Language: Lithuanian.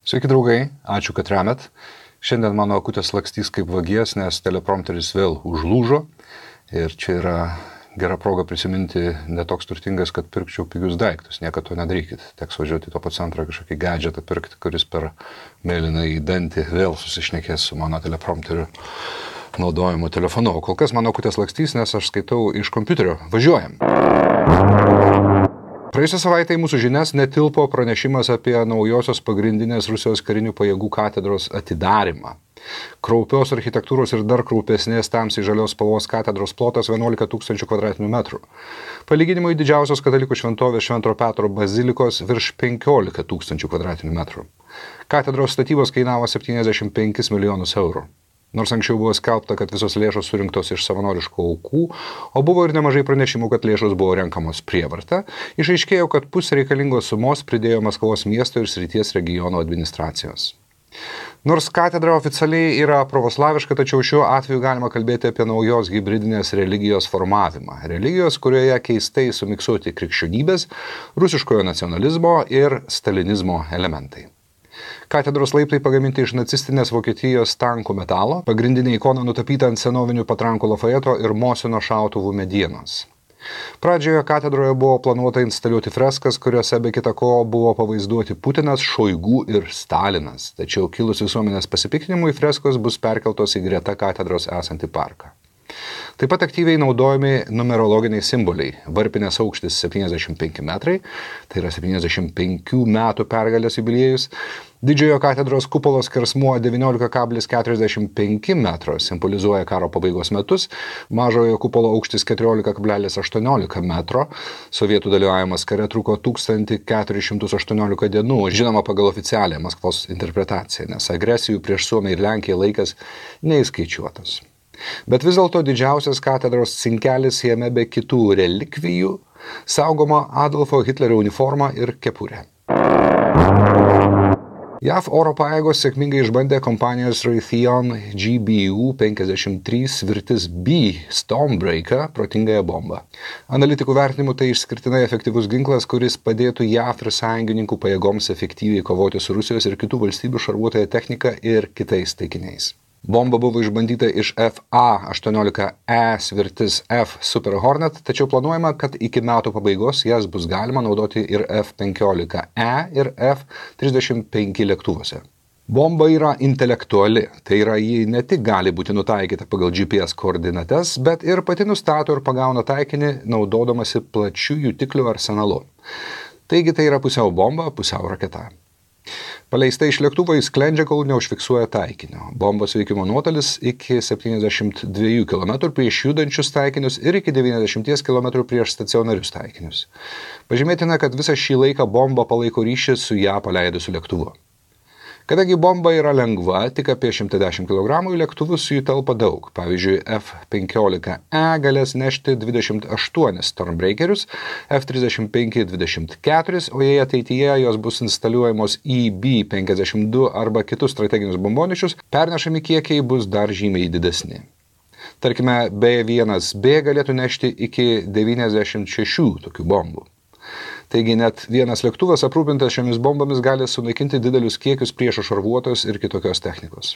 Sveiki draugai, ačiū, kad remet. Šiandien mano akutės lakstys kaip vagies, nes teleprompteris vėl užlūžo. Ir čia yra gera proga prisiminti netoks turtingas, kad pirkčiau pigius daiktus. Niekad to nedarykit. Teks važiuoti į to centrą kažkokį gadgetą pirkti, kuris per mėlyną į dantį vėl susišnekės su mano teleprompteriu naudojimu telefonu. O kol kas mano akutės lakstys, nes aš skaitau iš kompiuterio. Važiuojam. Praėjusią savaitę į mūsų žinias netilpo pranešimas apie naujosios pagrindinės Rusijos karinių pajėgų katedros atidarymą. Kraupios architektūros ir dar kraupesnės tamsiai žalios spalvos katedros plotas 11 000 kvadratinių metrų. Palyginimui didžiausios katalikų šventovės Švento Petro bazilikos virš 15 000 kvadratinių metrų. Katedros statybos kainavo 75 milijonus eurų. Nors anksčiau buvo skelbta, kad visos lėšos surinktos iš savanoriškų aukų, o buvo ir nemažai pranešimų, kad lėšos buvo renkamos prievarta, išaiškėjo, kad pusę reikalingos sumos pridėjo Maskvos miesto ir srities regiono administracijos. Nors katedra oficialiai yra pravoslaviška, tačiau šiuo atveju galima kalbėti apie naujos hibridinės religijos formavimą. Religijos, kurioje keistai sumiksuoti krikščionybės, rusiškojo nacionalizmo ir stalinizmo elementai. Katedros laiptai pagaminti iš nacistinės Vokietijos tankų metalo, pagrindinė ikona nutapyta ant senovinių patrankų Lafayeto ir Mosino šautuvų medienos. Pradžioje katedroje buvo planuota instaliuoti freskas, kuriuose be kita ko buvo pavaizduoti Putinas, Šoigu ir Stalinas. Tačiau kilus visuomenės pasipiktinimui freskos bus perkeltos į greta katedros esantį parką. Taip pat aktyviai naudojami numerologiniai simboliai. Varpinės aukštis 75 metrai, tai yra 75 metų pergalės jubiliejus. Didžiojo katedros kupolos skersmuo 19,45 metro simbolizuoja karo pabaigos metus, mažojo kupolo aukštis 14,18 metro. Sovietų dalyvavimas kare truko 1418 dienų, žinoma pagal oficialią Maskvos interpretaciją, nes agresijų prieš Suomiją ir Lenkiją laikas neįskaičiuotas. Bet vis dėlto didžiausias katedros cinkelis jame be kitų relikvijų saugoma Adolfo Hitlerio uniforma ir kepurė. JAV oro pajėgos sėkmingai išbandė kompanijos Raytheon GBU-53 Svirtis B Stormbreaker protingąją bombą. Analitikų vertinimu tai išskirtinai efektyvus ginklas, kuris padėtų JAV ir sąjungininkų pajėgoms efektyviai kovoti su Rusijos ir kitų valstybių šarvuotąja technika ir kitais taikiniais. Bomba buvo išbandyta iš FA-18E Svirtis F Super Hornet, tačiau planuojama, kad iki metų pabaigos jas bus galima naudoti ir F-15E ir F-35 lėktuvuose. Bomba yra intelektuali, tai yra ji ne tik gali būti nutaikyta pagal GPS koordinates, bet ir pati nustato ir pagauna taikinį naudodamasi plačių jutiklių arsenalu. Taigi tai yra pusiau bomba, pusiau raketa. Paleista iš lėktuvo jis sklendžia, kol neužfiksuoja taikinio. Bombos veikimo nuotolis iki 72 km prieš judančius taikinius ir iki 90 km prieš stacionarius taikinius. Pažymėtina, kad visą šį laiką bomba palaiko ryšį su ją paleidusiu lėktuvu. Kadangi bomba yra lengva, tik apie 110 kg, į lėktuvus jų telpa daug. Pavyzdžiui, F-15E galės nešti 28 Stormbreakerius, F-35 24, o jei ateityje jos bus instaliuojamos į B-52 arba kitus strateginius bombonešius, pernešami kiekiai bus dar žymiai didesni. Tarkime, B-1B galėtų nešti iki 96 tokių bombų. Taigi net vienas lėktuvas aprūpintas šiomis bombomis gali sunaikinti didelius kiekius priešo šarvuotos ir kitokios technikos.